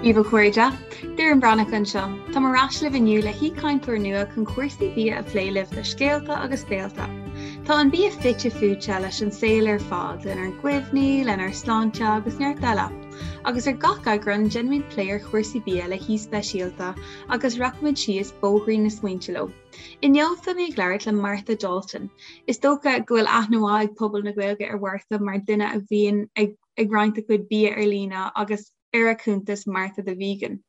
Dia daoibh a chairde, Doireann Breathnach anseo. Táim ar ais libh inniu le haoichainteoir nua chun cúrsaí bia a phlé libh le scéalta agus béalta. Tá an bia fite fuaite leis an saol ar fad, lenár gcuimhní, lenár sláinte agus neart eile. Agus ar gach eagrán, déanaimid plé ar chúrsaí bia le haoi speisialta agus rachaimid síos bóithrín na smaointe leo. Inniu beidh mé ag labhairt le Martha Dalton. Is dócha go bhfuil aithne mhaith ag pobal na Gaeilge ar Mhartha mar duine a bhíonn ag ag roinnt a cuid bia ar líne agus ar a cuntas Martha the Vegan.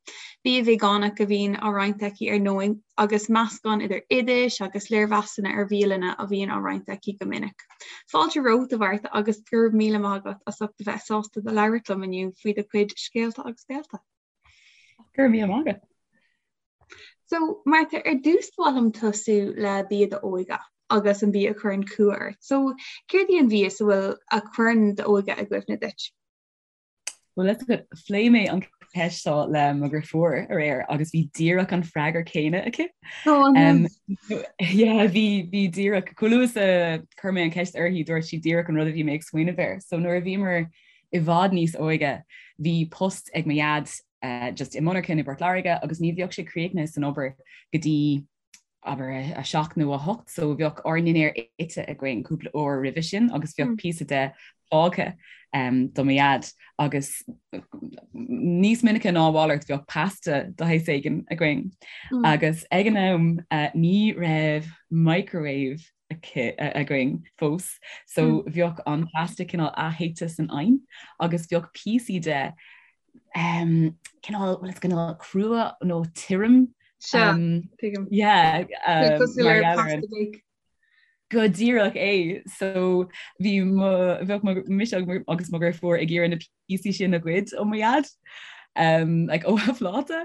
Bia veigeánach a bhíonn á roinnt aici ar ndóigh agus meascán idir oidis agus léirmheasanna ar bhialanna a bhíonn á roinnt aici go minic. Fáilte romhat a Mhartha agus go raibh míle maith agat as ucht a bheith sásta do labhairt liom inniu faoi do chuid scéalta agus béalta. Go raibh míle maith agat. So, Martha, ar dtús ba mhaith liom tosú le bia d'óige agus an bia a chuireann cumha ort. So, céard í an mhias a bhfuil a chuireann d'óige i gcuimhne duit? Well, let's go. Phléigh mé an ceist seo le mo dheirfiúr aréir agus bhí díreach an freagra céanna aici. Oh, um, yeah, bhí bhí díreach chomh luath is a chuir mé an ceist uirthi dúirt sí díreach an rud a bhí mé ag smaoineamh air. So nuair a bhíomar i bhfad níos óige bhí post ag mo dhaid just i monarcha i bPort Láirge agus ní bheadh sé críochnaithe san obair go dtí abair a 7 nó a 8 so bheadh ár ndinnéar ite againn cúpla uair roimhe sin agus bheadh mm. píosa de fágtha um, do mo dhaid agus níos minice ná a mhalairt bheadh pasta de shaghas éigin againn. Mm. Agus ag an am uh, ní raibh microwave againn fós so mm. bheadh an pasta cineál aththéite san oigheann agus bheadh píosaí de um, cineál well, cineál crua nó tirim um, yeah, um, go díreach é so bhí bheadh mise agus mo dheirfiúr ag iarraidh na píosaí sin a ghoid ó mo dhaid um, like, ó a phláta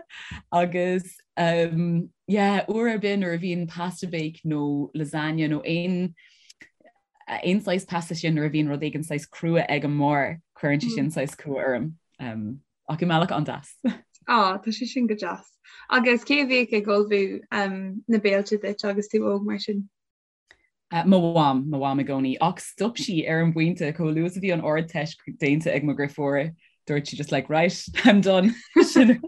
agus um, yeah, uair ar bith nuair a bhíonn pasta bake nó lasagna nó aon aon saghas pasta sin nuair a bhíonn rud éigin saghas crua ag an mbarr cuireann sé sin mm. saghas cumha orm um, ach i mbealach an-deas. Á tá sé sin go deas. Agus cé a bhíodh ag ullmhú um, na béilte duit agus tú óg mar sin? Uh, mo mham, mo mham i gcónaí, ach stop sí ar an bpointe chomh luath is a bhí an Ardteist déanta ag mo dheirfiúr, dúirt sí just like right, I'm done. Sin.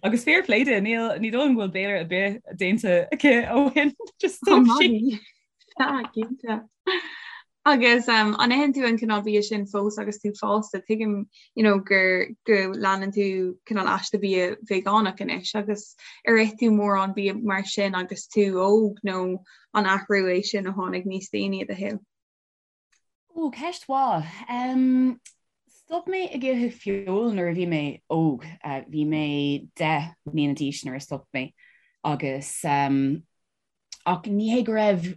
Agus fair play di, níl ní dóigh liom go bhfuil béile ar bith déanta aici ó shin, just stop sí. Ah, cinnte. Agus um, an itheann tú an cineál bia sin fós agus tú fásta, tuigim you know, gur go leanann tú cineál aiste bia veigeánach anois agus ar ith tú mórán bia mar sin agus tú óg nó an athrú é sin a tháinig níos déanaí i do shaol? Ó, ceist mhaith. Um, stop mé ag ithe feoil nuair a bhí mé óg. Uh, bhí mé 10 mbliana d'aois nuair a stop mé agus um, Ach ní hé go raibh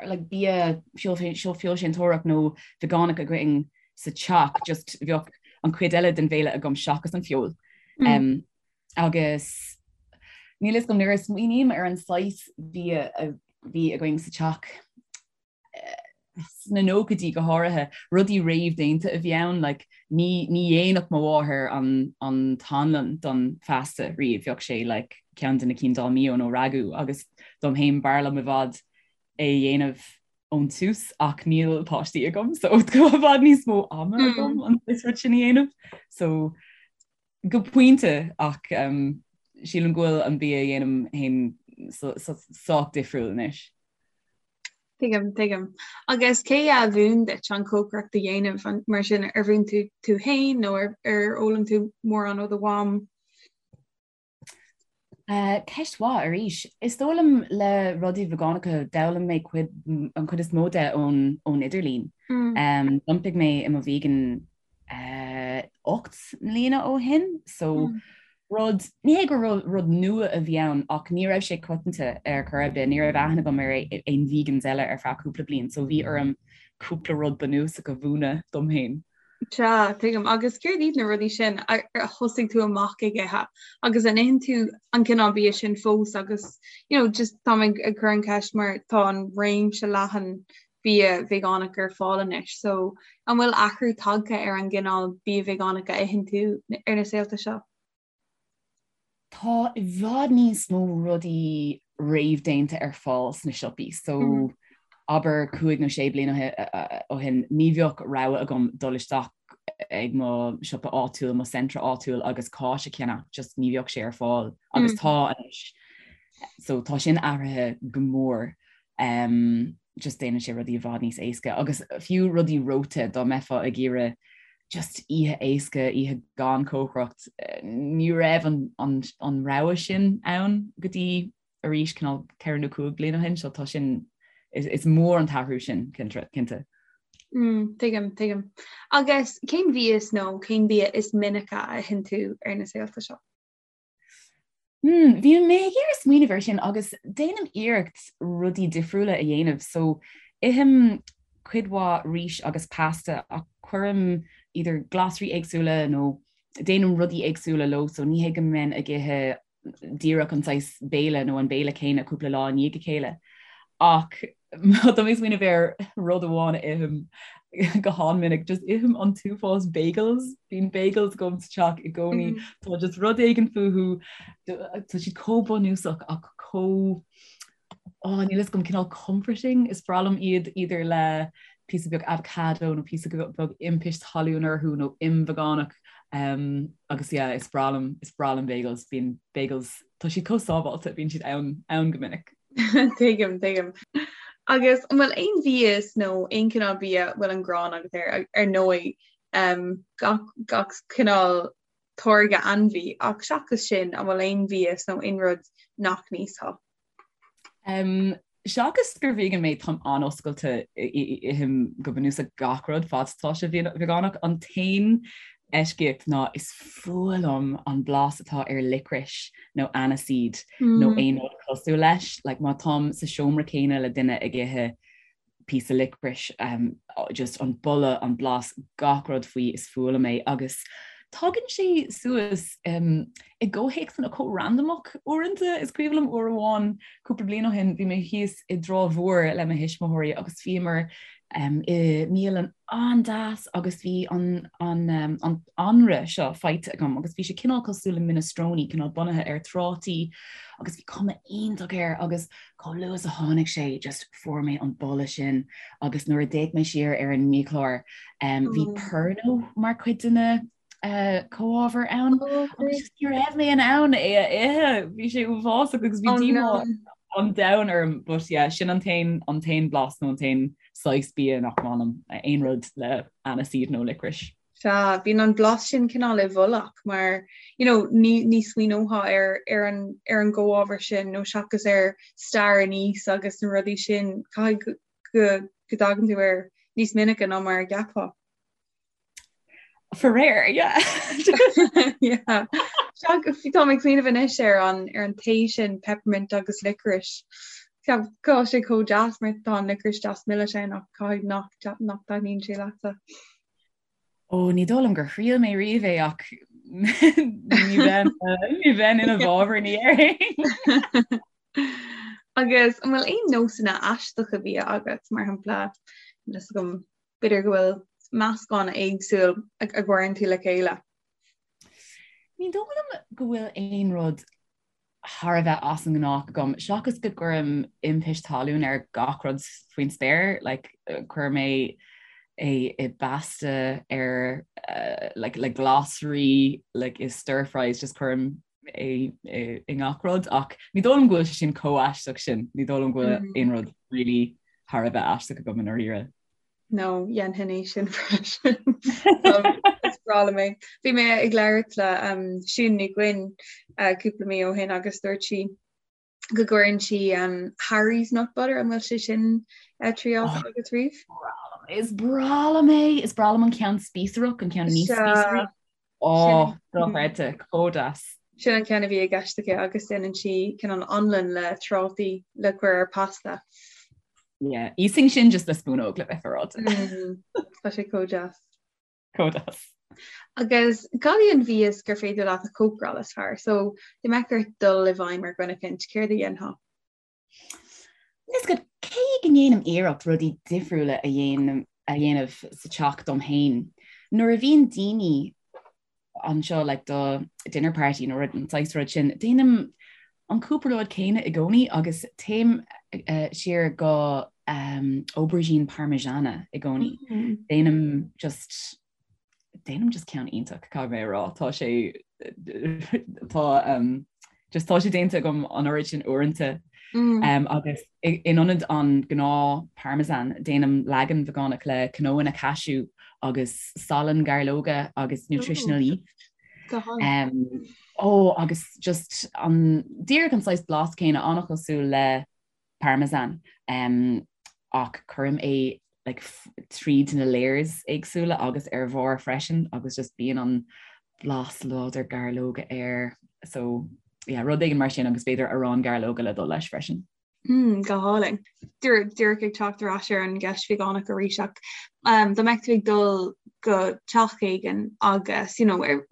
like, bia feoilséantóireacht nó veigeánach againn sa teach, just bheadh an chuid eile den bhéile agam seachas an feoil. Mm. Um, agus níl a fhios agam nuair a smaoiním ar an saghas bia a bhí againn sa teach, sna nóchaidí go háirithe, rudaí réamhdhéanta a bhí ann, like, ní, ní dhéanfadh mo mháthair an, an t-anlann don phasta riamh, bheadh sé like, ceann de na cinn Dolmio nó Ragú agus dom féin b'fhearr liom i bhfad é a dhéanamh ón tús ach níl páistí agam so tá i bhfad níos mó ama mm. agam an rud sin a dhéanamh. So go pointe ach um, sílim go bhfuil an bia a dhéanaim féin sách difriúil anois. Tuigim, tuigim. Agus cé a mhúin duit an chócaireacht a dhéanamh mar sin ar mhúin tú tú féin nó ar ar fhoghlaim tú mórán ó do mham? Uh, ceist mhaith arís. Is dóigh liom le rudaí veigeánacha d'fhoghlaim mé cuid, an chuid is mó de ón, ón idirlíon. Mm. Um, D'iompaigh mé i mo vegan 8 mbliana ó shin so mm. rud ní hé gur rud nua a bhí ann ach ní raibh sé coitianta ar chor ar bith, ní raibh aithne agam ar aon vegans eile ar feadh cúpla bliain, so bhí orm cúpla rud bunúsach a mhúineadh dom féin. Sea, tuigim. Agus céard iad na rudaí sin a thosaigh tú amach ag ithe? Agus an itheann tú an cineál bia sin fós agus you know, just táim ag, ag cur an ceist mar tá an réimse leathan bia veigeánach ar fáil anois. So, an bhfuil athrú tagtha ar an gcineál bia veigeánach a itheann tú ar na saolta seo? Tá i bhfad níos mó rudaí réamhdhéanta ar fáil sna siopaí. So, mm. abair 5 nó 6 bliana ó shin ní bheadh rogha agam dul isteach ag mo siopa áitiúil, mo Centra áitiúil agus cáis a cheannach, just ní bheadh sé ar fáil agus tá anois. So tá sin athraithe go mór. Um, just déanann sé rudaí i bhfad níos éasca agus fiú rudaí reoite dá mbeifeá ag iarraidh just oíche éasca, oíche gan cócaireacht, ní raibh an, an, an rogha sin ann go dtí arís cineál 4 nó 5 bliana ó shin, so tá sin, is, is mór an t-athrú sin, cinnte. Mm, tuigim, tuigim. Agus cén mhias nó cén bia is minice a itheann tú ar na saolta seo? Mm, bhí mé ag iarraidh smaoineamh air sin agus déanaim iarracht rudaí difriúla a dhéanamh, so ithim cuid mhaith rís agus pasta ach cuirim idir glasraí éagsúla nó déanaim rudaí éagsúla leo, so ní hé go mbeinn ag ithe díreach an saghas béile nó an béile céanna cúpla lá i ndiaidh a chéile. Ach má tá mé ag smaoineamh ar rud amháin a ithim go han-mhinic, just ithim an t-uafás bagels, bíonn bagels agam sa teach i gcónaí, mm. Tá just rud éigin fúthu, tá siad chomh bunúsach ach chomh oh, níl a fhios agam cineál comforting, is breá liom iad idir le píosa beag avocado nó píosa beag impist talún orthu nó im veigeánach um, agus yeah, is breá liom is breá liom bagels, bíonn bagels tá siad chomh sábháilte, bíonn siad ann ann go minic. Tuigim, tuigim. Agus an bhfuil aon mhias nó aon cineál bia a bhfuil an ghráin agat air ar ndóigh um, gach, gach cineál táirge ainmhí ach seachas sin an bhfuil aon mhias nó aon rud nach n-íosfá? Um, seachas gur vegan mé táim an-oscailte ithim go bunúsach gach rud fad is atá sé veigeánach. An t-aon eisceacht ná is fuath liom an blas atá ar licorice nó aniseed mm. nó aon rud cosúil leis. Like, má táim sa seomra céanna le duine ag ithe píosa licorice, um, just an boladh, an blas, gach rud faoi is fuath liom é agus tagann sé suas um, i gcomhthéacsanna chomh randamach uaireanta. Is cuimhin liom uair amháin cúpla bliain ó shin bhí mé thíos i dTrá Mhór le mo thuismitheoirí agus bhíomar um, i mbialann an-deas agus bhí an, an, um, an anraith seo faighte agam agus bhí sé cineál cosúil le minestrone, cineál bunaithe ar trátaí agus bhí cuma iontach air agus Chomh luath is a tháinig sé just fuair mé an boladh sin agus nuair a d'fhéach mé siar ar an mbiachlár um, bhí oh. Pernod mar chuid de na uh, comhábhair ann oh, agus just ní raibh mé in ann é a ithe bhí sé uafásach agus bhí oh, díomá an domhain orm but yeah, sin an t-aon an t-aon blas nó an t-aon saghas bia nach maith liom aon rud le aniseed nó licorice. Sea, bíonn an blas sin cineál i bhfolach mar, you know, ní, ní smaoineofá ar, ar an, ar an gcomhábhar sin nó seachas ar stair aníos agus na rudaí sin, caithfidh go, go dtagann tú air níos minice ná mar a cheapfá. Faraor, yeah. Yeah. Sea, tá mé ag smaoineamh anois ar an, ar an tae sin peppermint agus licorice. Tá sé chomh deas mar tá an licorice deas milis ann ach caithfidh nach, nach dtaitníonn sé leatsa. Ó, ní dóigh liom gur thriail mé riamh é ach ní bheinn ní bheinn ina bhfabhar ní déarfainn. Agus an bhfuil aon nósanna aisteacha bia agat, mar shampla, níl a fhios agam, b'fhéidir go bhfuil meascán éagsúil a gcuireann tú le chéile? Ní dóigh liom go bhfuil aon rud thar a bheith as an ngnách agam, seachas go gcuirim impist talún ar gach rud faoin spéir, like, cuirim é é i bpasta ar uh, like, le glasraí like, i stir fries just cuirim é i ngach rud ach ní dóigh liom go bhfuil sé sin chomh aisteach sin, ní dóigh liom go bhfuil mm. aon rud really thar a bheith aisteach agam i ndáiríre. No, dhéanfainn é sin freisin. Is breá liom é. Bhí mé ag labhairt le um, Siún Ní Dhuinn uh, cúpla mí ó shin agus dúirt sí go gcuireann sí um, Harry's nut butter an bhfuil sé sin uh, triáilte oh, agat riamh? Is breá liom é, is breá liom an ceann spíosrach an ceann níos spíosraí. Ó, dochreidte, chomh deas. Sin an ceann a bhí i gceist aici agus déanann sí cineál anlann le trátaí le cur ar pasta. Yeah, íosfainn sin just le spúnóg le bheith féaráilte. Mm, tá sé chomh deas. Chomh deas. Agus cad í an mhias gur féidir leat a chócaráil is fearr? So, dá mbeadh ort dul i bhfeidhm ar dhuine eicínt, céard a dhéanfá? Is go cé go ndéanaim iarracht rudaí difriúla a dhéanamh a dhéanamh sa teach dom féin, nuair a bhíonn daoine anseo like do dinner party nó rud an saghas rud sin, déanaim an cúpla rud céanna i gcónaí agus téim uh, siar go um, aubergine parmigiana i gcónaí. Mm. Déanaim just Déanaim just ceann iontach, caithfidh mé a rá. Tá sé tá um, just tá sé déanta agam an oiread sin uaireanta mm. um, agus in ionad an gnáth parmesan déanaim leagan vegánach le cnónna cashew agus salann gairleoga agus nutritional yeast. Um, ó agus just an díreach an saghas blas céanna an-chosúil le parmesan um, ach cuirim é like, tríd na layers éagsúla agus ar bharr freisin agus just bíonn an blas láidir gairleoga air so yeah, rud éigin mar sin agus b'fhéidir arán gairleoga le dul leis freisin. Mm, go hálainn. Díreach ag teacht ar ais ar an gceist vegánach arís ach um, dá mbeadh tú ag dul go teach éigin agus you know, ar,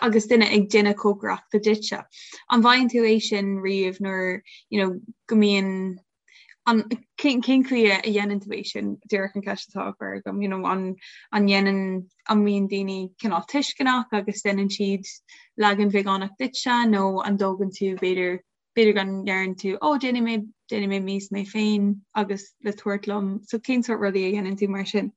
agus duine ag déanamh cócaireachta duitse. An bhfaigheann tú é sin riamh nuair you know, go mbíonn an cén chaoi a dhéanann tú é sin díreach an ceist atá á chur agam you know, an an dhéanann an mbíonn daoine cineál tuisceanach agus déanann siad leagan vegánach duitse nó an dtógann tú b'fhéidir b'fhéidir go ndeireann tú ó déanfaidh mé déanfaidh mé mias mé féin agus le tabhairt liom so cén sórt rudaí a dhéanann tú mar sin?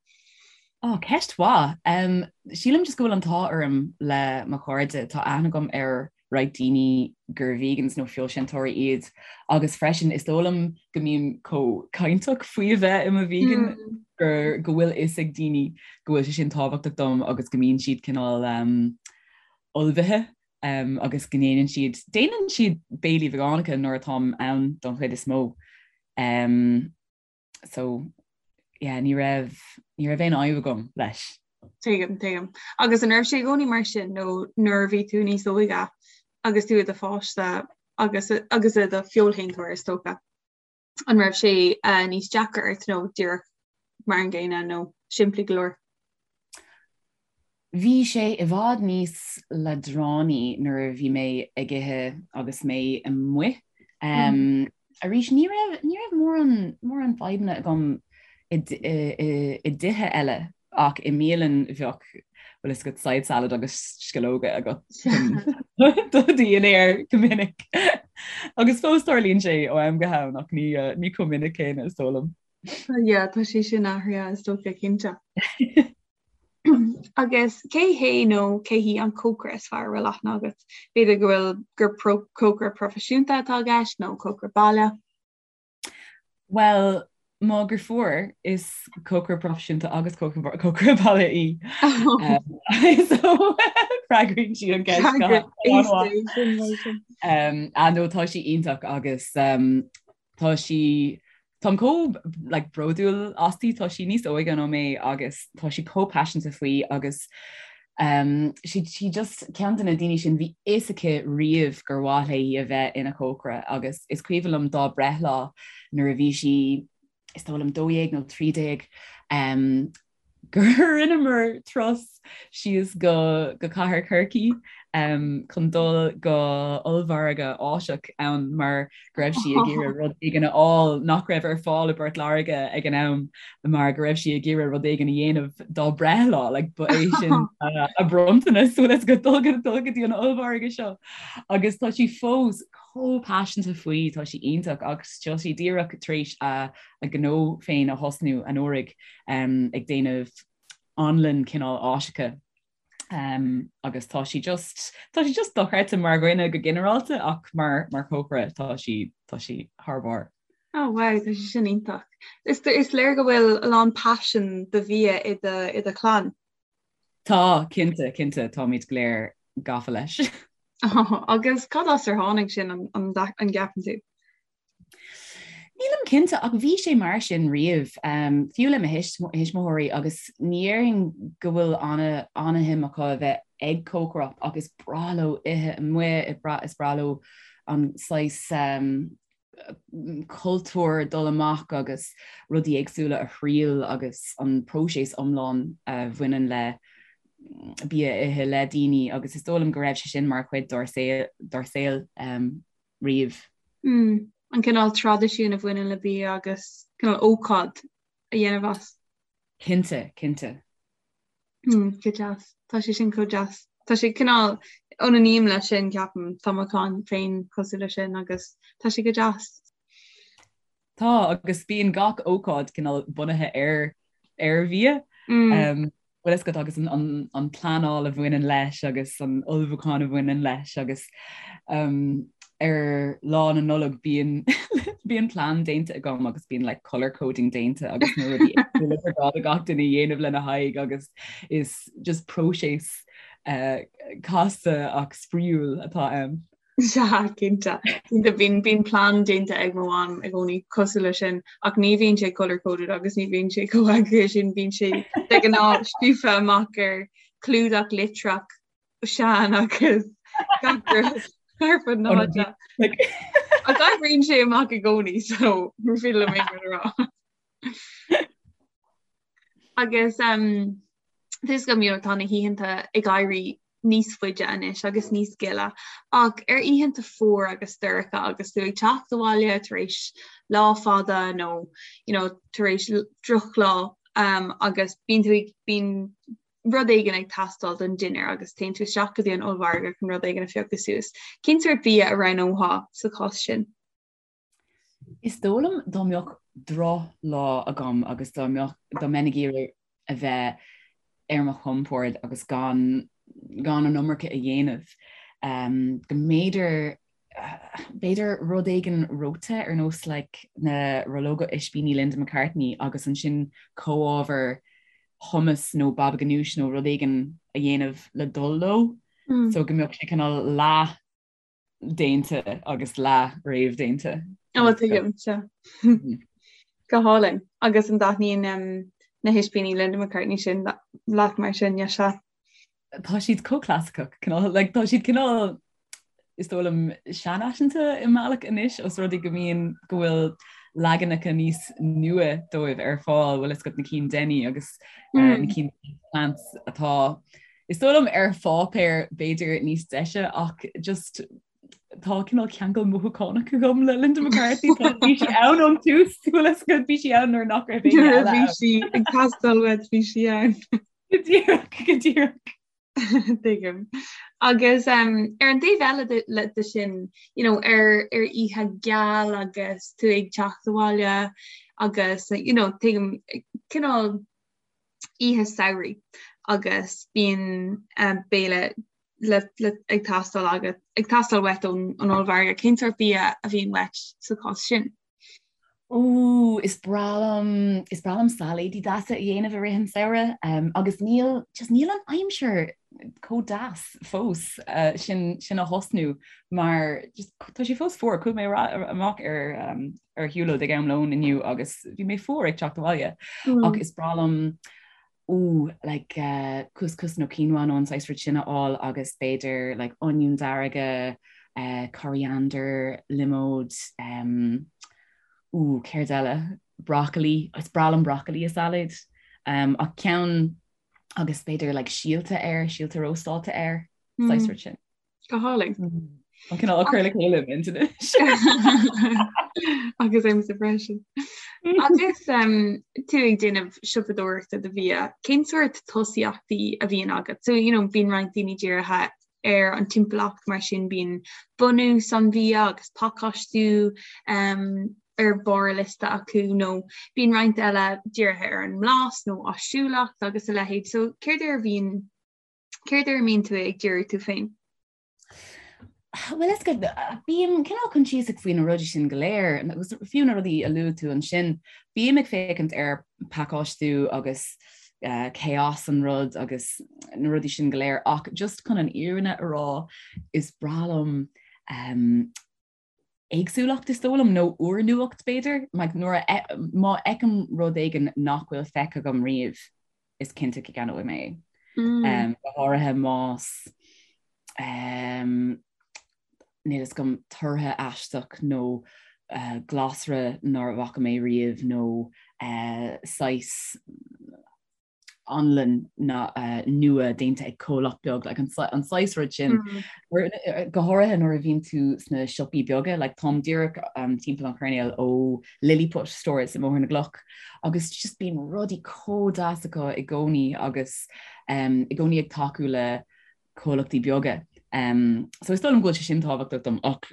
Ó, ceist mhaith. Um, sílim just go bhfuil an t-ádh orm le mo chairde, tá aithne agam ar roinnt daoine gur vegans nó feoilséantóirí iad agus freisin is dóigh liom go mbím chomh cainteach faoi a bheith i mo vegan mm. gur go bhfuil fhios ag daoine go bhfuil sé sin tábhachtach dom agus go mbíonn siad cineál um, ullmhaithe um, agus go ndéanann siad déanann siad béilí vegánacha nuair atáim ann don chuid is mó. Um, so yeah, ní raibh ní raibh aon fhadhb agam leis. Tuigim, tuigim. Agus an raibh sé i gcónaí mar sin nó nuair a bhí tú níos óige agus tú i do pháiste agus agus i do feoilshéantóir is dócha. An raibh sé uh, níos deacra ort nó díreach mar an gcéanna nó simplí go leor? Bhí sé i bhfad níos leadránaí nuair a bhí mé ag ithe agus mé amuigh. Um, arís ní raibh ní raibh mórán mórán fadhbanna agam i i dtithe eile ach i mbialann bheadh bhfuil fhios agat side salad agus sceallóga agat do dhinnéar go minic. Agus fós tarlaíonn sé ó am go ham ach ní ní chomh minic céanna is dóigh liom. Yeah, tá sé sin athraithe is dócha cinnte. Agus cé hé nó cé hí an cócaire is fearr a bhfuil aithne agat? B'fhéidir go bhfuil gur cócaire proifisiúnta atá i gceist nó cócaire baile? Bhuel, mo dheirfiúr is cócaire proifisiúnta agus cócaire baile í. So freagraíonn sí an ceist go Ah no tá sí iontach agus Tá sí Táim chomh like, bródúil asti, tá sí níos óige ná mé agus tá sí chomh paiseanta faoi agus um, sí, sí just ceann de na daoine sin bhí fhios aici riamh gur mhaith léi a bheith ina cócaire agus is cuimhin liom dá breithlá nuair a bhí sí is dóigh liom 12 nó 13 um, gur rinneamar turas síos go go cathair Chorcaí um, chun dul go ollmhargadh Áiseach ann mar go raibh sí ag iarraidh rud éigin a fháil nach raibh ar fáil i bPort Láirge ag an am mar go raibh sí ag iarraidh rud éigin a dhéanamh dá breithlá like, ba é sin uh, a bronntanas bhfuil fhios agat dul go dul go dtí an ollmhargadh seo agus tá sí fós chomh paiseanta faoi tá sí iontach agus tá sí díreach tar éis a a gnó féin a thosnú anuraidh ag déanamh anlann cineál Áiseacha agus tá sí just tá sí just dochreidte mar dhuine go ginearálta ach mar mar chócaire tá sí tá sí thar barr. Oh wow, tá sé sin iontach. Is is léir go bhfuil a lán paisean do bhia i do i do chlann. Tá, cinnte, cinnte, táimid go léir gafa leis. Oh, agus cad as ar tháinig sin an an an gceapann tú? Nílim cinnte ach bhí sé mar sin riamh, fiú le mo thuismitheoirí agus ní déarfainn go bhfuil ana-shuim acu a bheith ag cócaireacht ach is breá leo ithe amuigh, is breá leo an saghas cultúr dul amach agus rudaí éagsúla a thriail agus an próiseas iomlán a bhaineann le bia a ithe le daoine agus is dóigh liom go raibh sé sin mar chuid dár saol. riamh. Mm, an cineál traidisiún a bhaineann le bia agus cineál ócáid a dhéanamh as. Cinnte, cinnte. Mm, go deas. Tá sé sin chomh deas. Tá sé cineál ionainním leis sin ceapaim, tá mo chlann féin cosúil leis sin agus tá sé go deas. Tá, agus bíonn gach ócáid cineál bunaithe ar ar bhia. Mm. Um, Bhfuil fhios agat agus an pleanáil a bhaineann leis agus an ullmhúchán a bhaineann leis agus ar lá na Nollag bíonn bíonn plean déanta agam agus bíonn like colour coding déanta agus na rudaí éagsúla gur gá do gach duine a dhéanamh lena haghaidh agus is just próiseas uh, casta ach spraíúil atá ann. Sea, cinnte. Cinnte, bíonn, bíonn plean déanta ag mo mham i gcónaí cosúil leis sin, ach ní bhíonn sé colour coded agus ní bhíonn sé chomh heagraithe sin, bíonn sé de ghnáth scríofa amach ar chlúdach litreach sean agus gach rud ar fud na háite. Ach oibríonn sé amach i gcónaí, so ní féidir liom aon rud a rá. Agus um, tá fhios agam you know, tá na hoícheanta ag éirí níos faide anois agus níos gile ach ar oícheanta fuar agus dorcha agus tú ag teacht abhaile tar éis lá fada nó you know, tar éis drochlá um, agus bíonn tú ag bíonn rud éigin ag teastáil don dinnéar agus téann tú isteach go dtí an ollmhargadh chun rud éigin a phiocadh suas. Cén sórt bia a roghnófá sa chás sin? Is dóigh liom dá mbeadh drochlá agam agus dá mbeadh, dá mbeinn ag iarraidh a bheith ar mo chompord agus gan, gan an iomarca a dhéanamh, go mb'fhéidir, b'fhéidir rud éigin reoite ar nós like na rollóga ispíní Linda McCartney agus ansin comhábhar hummus nó baba ganoush nó rud éigin a dhéanamh le dul leo so go mbeadh sé cineál leath déanta agus leath réamhdhéanta. Ó tuigim sea. Go hálainn. Agus an dtaitníonn na hispíní Linda McCartney sin leat mar sin, yeah sea. Tá siad chomh clasaiceach, cineál, like, tá siad cineál is dóigh liom seanfhaiseanta i mbealach anois os rud é go mbíonn go bhfuil leaganacha níos nua dóibh ar fáil, bhfuil fhios agat na cinn Denny agus uh, na cinn Plants atá Is dóigh liom ar pháipéar b'fhéidir níos deise ach just tá cineál ceangal mothúchánach agam le Linda McCartney tá bhí sí ann ón tús bhfuil fhios agat bhí sí ann nuair nach raibh éinne eile Bhí sí ag teastáil uait bhí sí ann. Go díreach go díreach. Tuigim. Agus um, ar an taobh eile de, le, de sin, you know, ar, ar oíche geal agus tú ag teacht abhaile agus, you know, tuigim cineál oíche samhraidh agus bíonn béile le ag teastáil agat, ag teastáil uait ón ollmhargadh. Cén sórt bia a bhíonn uait sa chás sin? Ó, is breá liom, is breá liom sailéidí deasa a dhéanamh i rith an samhradh um, agus níl, just níl an aimsir chomh deas fós uh, sin, sin a thosnú mar just, tá sé fós fuar, chuaigh mé amach ar, um, ar shiúlóid ag am lóin inniu agus bhí mé fuar ag teacht abhaile mm. ach is breá liom ó like uh, couscous nó quinoa nó an saghas rud sin a fháil agus b'fhéidir like oinniún dearga, uh, coriander, liomóid, um, ó céard eile broccoli, is breá liom broccoli i salad um, ach ceann agus b'fhéidir like síolta air, síolta róstáilte air, mm. saghas rud sin. Go hálainn. An cineál á cur le chéile im' anois. Agus ormsa freisin. Agus tú ag déanamh siopadóireachta do bhia, cén sórt tosaíochtaí a bhíonn agat? So, you know, bíonn roinnt daoine dírithe ar an timpeallacht mar sin bíonn bunús an bhia agus pacáistiú um, ar bharr a liosta acu nó bíonn roinnt eile dírithe ar an mblas nó áisiúlacht agus a leithéid. So céard ar a bhíonn Céard ar a mbíonn tú ag díriú tú féin? Bhuel is go bím cineál coinsiasach faoi na rudaí sin go léir agus fiú na rudaí a luaigh tú ansin, bím ag féachaint ar pacáistiú agus uh, cé as an rud agus na rudaí sin go léir ach just chun an fhírinne a rá is breá liom um, éagsúlacht is dóigh liom, nó úrnuacht b'fhéidir, like nuair a má fheicim rud éigin nach bhfuil feicthe agam riamh, is cinnte go gceannóidh mé é. Mm. Um, go háirithe más um, níl fhios agam tortha aisteach nó uh, glasra nár bhfaca mé riamh nó uh, saghas anlann nua déanta ag comhlacht beag, like an saghas rud sin. Mm. Go háirithe nuair a bhíonn tú sna siopaí beaga, like táim díreach um, timpeall an choirnéil ó Lilliput Stores i mBóthar na gCloch agus just bíonn rudaí chomh deas acu i gcónaí agus um, i gcónaí ag tacú le comhlachtaí beaga. Um, so is dóigh liom go bhfuil sé sin tábhachtach dom ach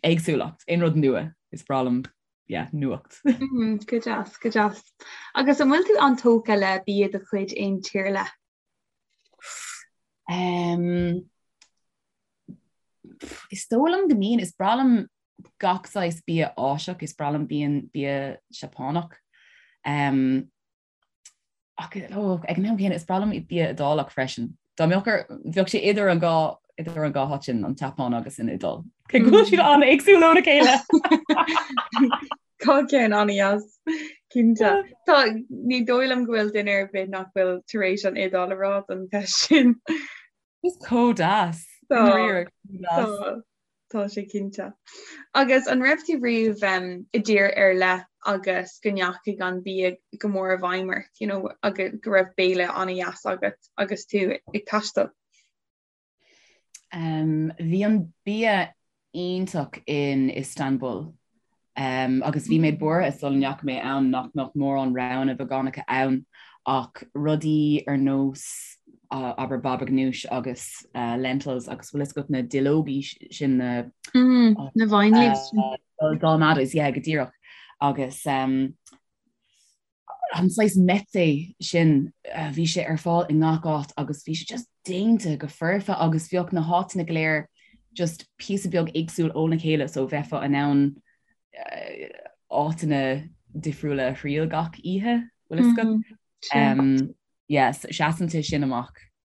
éagsúlacht, aon rud nua is breá liom. yeah, nuacht. Mm, go deas, go deas. Agus an bhfuil tú an-tógtha le bia de chuid aon tír ar leith? Um, is dóigh liom go mbíonn, is breá liom gach saghas bia Áiseach, is breá liom bíonn bia Seapánach. Um, ach oh, ag an am céanna is breá liom bia Iodálach freisin. Dá mbeadh ar bheadh sé idir an dhá idir an dhá háit sin an tSeapáin agus an Iodáil. Cé go bhfuil siad an-éagsúil óna chéile. Tá ceann an-deas cinnte. Tá ní dóigh liom go bhfuil duine ar bith nach bhfuil tar éis an Iodáil a rá don cheist sin. Is chomh deas. Tá Tá sé cinnte. Agus an raibh tú riamh i dtír ar leith agus go ndeachaigh an bia go mór i bhfeidhm ort, you know, agus go raibh béile an-deas agat agus tú ag taisteal? Um, bhí an bia iontach in Istanbul. Um, agus bhí mé buartha sula ndeachaigh mé ann nach mbeadh mórán roghanna veigeánacha ann ach rudaí ar nós uh, abair baba ganoush agus uh, lentils agus bhfuil fhios agat na duilleogaí sin na mm, na vine leaves uh, dolmades yeah, go díreach agus um, an saghas meze sin bhí sé ar fáil i ngach áit agus bhí sé just déanta go foirfe agus bheadh na háiteanna go léir just píosa beag éagsúil óna chéile so bheifeá in ann áiteanna difriúla a thriail gach oíche bhfuil fhios agat? Mm-hmm. Yes, seasann sé sin amach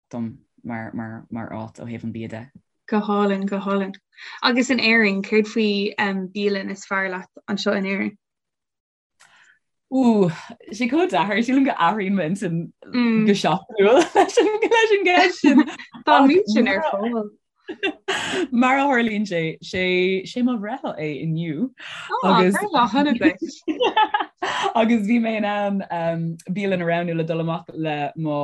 dom mar, mar, mar áit ó thaobh an bia de. Go hálainn, go hálainn. Agus in Éirinn, céard faoi um, bialann is fearr leat anseo in Éirinn? Ú, sé chomh deacair, sílim go athraíonn m'intinn go seachtainiúil leis an leis an gceist sin. Tá an méid sin ar fáil. Mar a tharlaíonn sé, sé sé mo bhreithlá é inniu agus breithlá shona duit. agus bhí mé in ann um, bialann a roghnú le dul amach le mo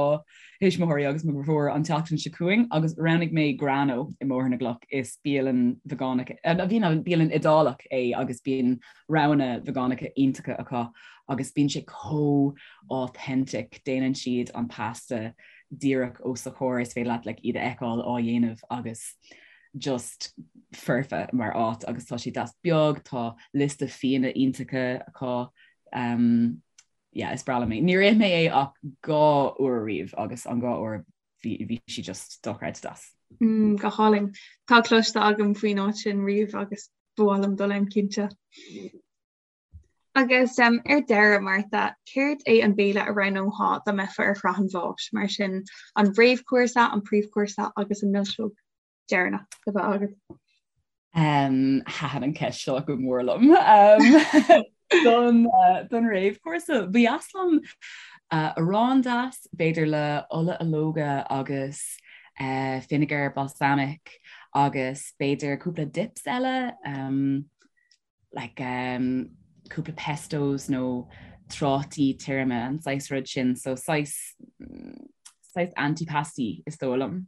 thuismitheoirí agus mo dheirfiúr an tseachtain seo chugainn agus roghnaigh mé Grano i mBóthar na gCloch. Is bialann veigeánach, bhí bialann Iodálach é agus bíonn roghanna veigeánacha iontacha acu agus bíonn sé chomh authentic, déanann siad an pasta díreach os do chomhair, is féidir leat like iad a fheiceáil á dhéanamh agus just foirfe mar áit agus tá sé deas beag, tá liosta fíona iontacha acu. Um, yeah, is breá liom é. Níor ith mé é ach 2 uair riamh agus an 2 uair bhí bhí sí just dochreidte deas. Mm, go hálainn. Tá cloiste agam faoin áit sin riamh agus ba mhaith liom dul ann cinnte. Agus um, ar deireadh, Martha, céard é an béile a roghnófá dá mbeifeá ar shraith an bháis, mar sin an réamhchúrsa, an príomhchúrsa agus an milseog? deireanach a bheith agat? Um, Thaitin an ceist seo go mór liom. Um, don, uh, don réamhchúrsa, ba dheas liom uh, arán deas, b'fhéidir le ola ológa agus uh, vinegar balsamic agus b'fhéidir cúpla dips eile, um, like um, cúpla pestos nó trátaí tirime an saghas rud sin, so saghas, saghas antipasti is dóigh liom.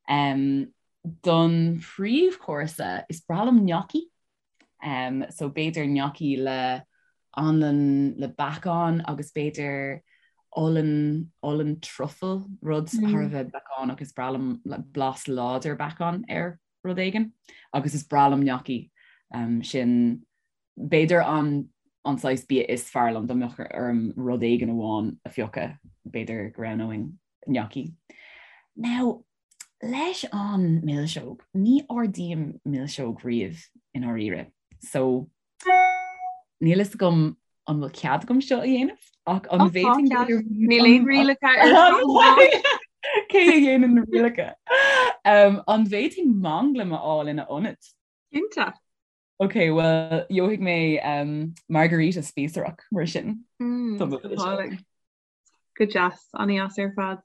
Um, don phríomhchúrsa is breá liom gnocchi, um, so b'fhéidir gnocchi le anlann le beacán agus b'fhéidir olann, olann truffle, rud mm. thar a bheith beacánach is breá liom like, blas láidir beacán ar rud éigin agus is breá liom gnocchi um, sin b'fhéidir an an saghas bia is fearr liom dá mbeadh orm rud éigin amháin a phiocadh b'fhéidir go roghnóinn gnocchi. Now, leis an milseog, ní ordaím milseog riamh i ndáiríre. So Níl fhios agam an bhfuil cead agam seo a dhéanamh ach an bhféadfainn Níl aon rialacha ar Cé a dhéanann na rialacha? Um, an bhféadfainn manglam a fháil ina ionad? Cinnte. Ok, well, gheobhaidh mé um, margarita spíosrach mar sin. Mm, Go deas, an-deas ar fad.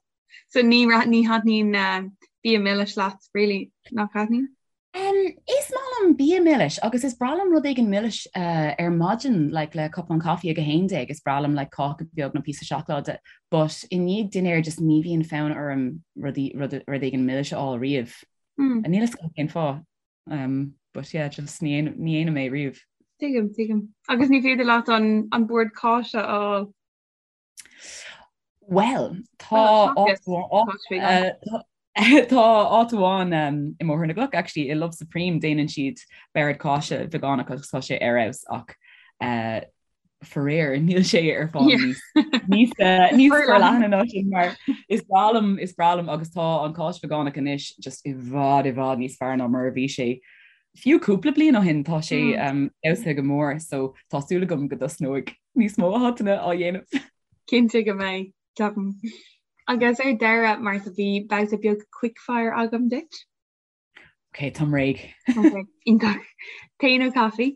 So ní ní thaitníonn uh, bia milis leat, really, nach thaitníonn? Um, is maith liom bia milis agus is breá liom rud éigin milis uh, ar maidin like, le cupán caife ag a haon déag, is breá liom like, cáca beag nó píosa seacláide, but i ndiaidh dinnéir just ní bhíonn fonn orm rud, rud, rud éigin milis a fháil riamh. Mm. Níl fhios agam cén fáth. Um, but yeah, just ní dhéanaim é riamh. Tuigim, tuigim. Agus ní féidir leat an, an bord cáise a fháil. Well, tá tá áit amháin um, i mBóthar na gCloch actually i Love Supreme déanann siad bord cáise veigeánach agus tá sé ar fheabhas ach Uh, faraor níl sé ar fáil níos níos eh, níos forleithne ná sin mar is breá liom is breá liom agus tá an cáis veigeánach anois just i bhfad i bhfad níos fearr ná mar a bhí sé fiú cúpla bliain ó shin tá sé mm. um, fheabhsaithe go mór so tá súil agam go dtosnóidh níos mó áiteanna á dhéanamh. Cinnte go mbeidh ceapaim. Agus ar deireadh Martha bhí babhta beag quickfire agam duit. Ok, táim réidh. Ok, iontach. Tae nó caife?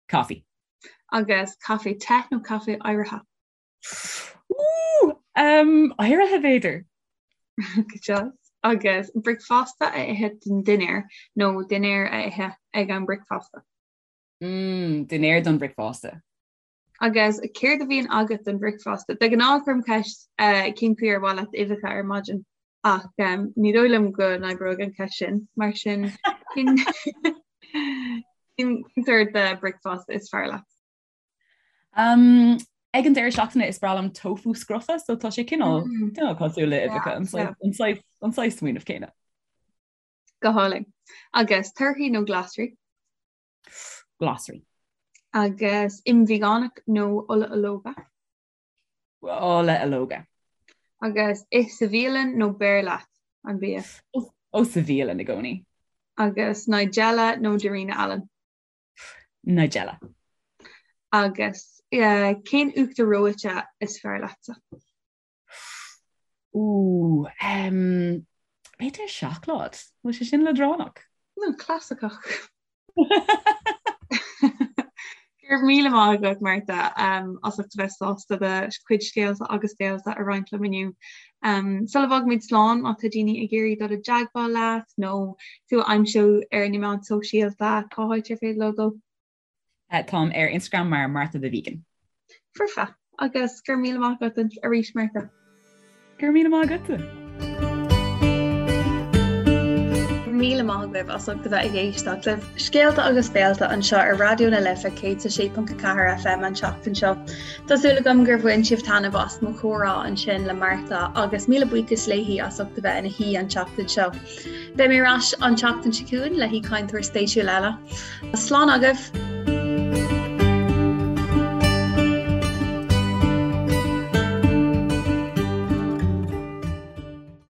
Coffee. Agus caife te nó caife oighrithe? Ooh, um, oighrithe b'fhéidir. Good job. Agus bricfeasta a ithe don dinnéar nó dinnéar a ithe ag an bricfeasta? Mm, dinnéar don bricfeasta. Agus céard a bhíonn agat don bhricfeasta? De ghnáth cuirim ceist eh, cén chaoi ar mhaith leat uibheacha ar maidin ach um, ní dóigh liom go n-oibreoidh an ceist sin mar sin cén cén sórt de bricfeasta is fearr leat? Um, ag an deireadh seachtaine is breá liom tofu scrofa, so tá sé cineál mm. cineál cosúil le uibheacha an saghas an saghas smaoineamh céanna. Go hálainn. Agus torthaí nó glasraí? Glasraí. Agus im veigeánach nó ola ológa? Ola ológa. Agus ith sa bhialann nó beir leat an bia? Ó sa bhialann i gcónaí. Agus Nigella nó Darina Allen? Nigella. Agus cén uachtar reoite is fearr leatsa? Ooh, um, b'fhéidir seacláid. Bhfuil sé sin leadránach? No, clasaiceach. Go raibh míle maith agat, Martha, um, as ucht a bheith sásta do chuid scéalta agus béalta a roinnt liom inniu. Um, sula bhfágaimid slán má tá daoine ag iarraidh dul i dteagmháil leat nó tú a aimsiú ar na meáin sóisialta, cá háit ar féidir leo dul? Táim ar Instagram mar Martha the Vegan. Foirfe. Agus go raibh míle maith agat arís Martha. Go raibh míle maith agatsa. Míle maith agaibh as ucht a bheith ag éisteacht le Scéalta agus Béalta anseo ar Raidió na Life 106.4 FM an tseachtain seo. Tá súil agam gur bhain sibh taitneamh as mo chomhrá ansin le Martha agus míle buíochas léi as ucht a bheith ina haoi an tseachtain seo. Beidh mé ar ais an tseachtain seo chugainn le haoichainteoir spéisiúil eile. Slán agaibh!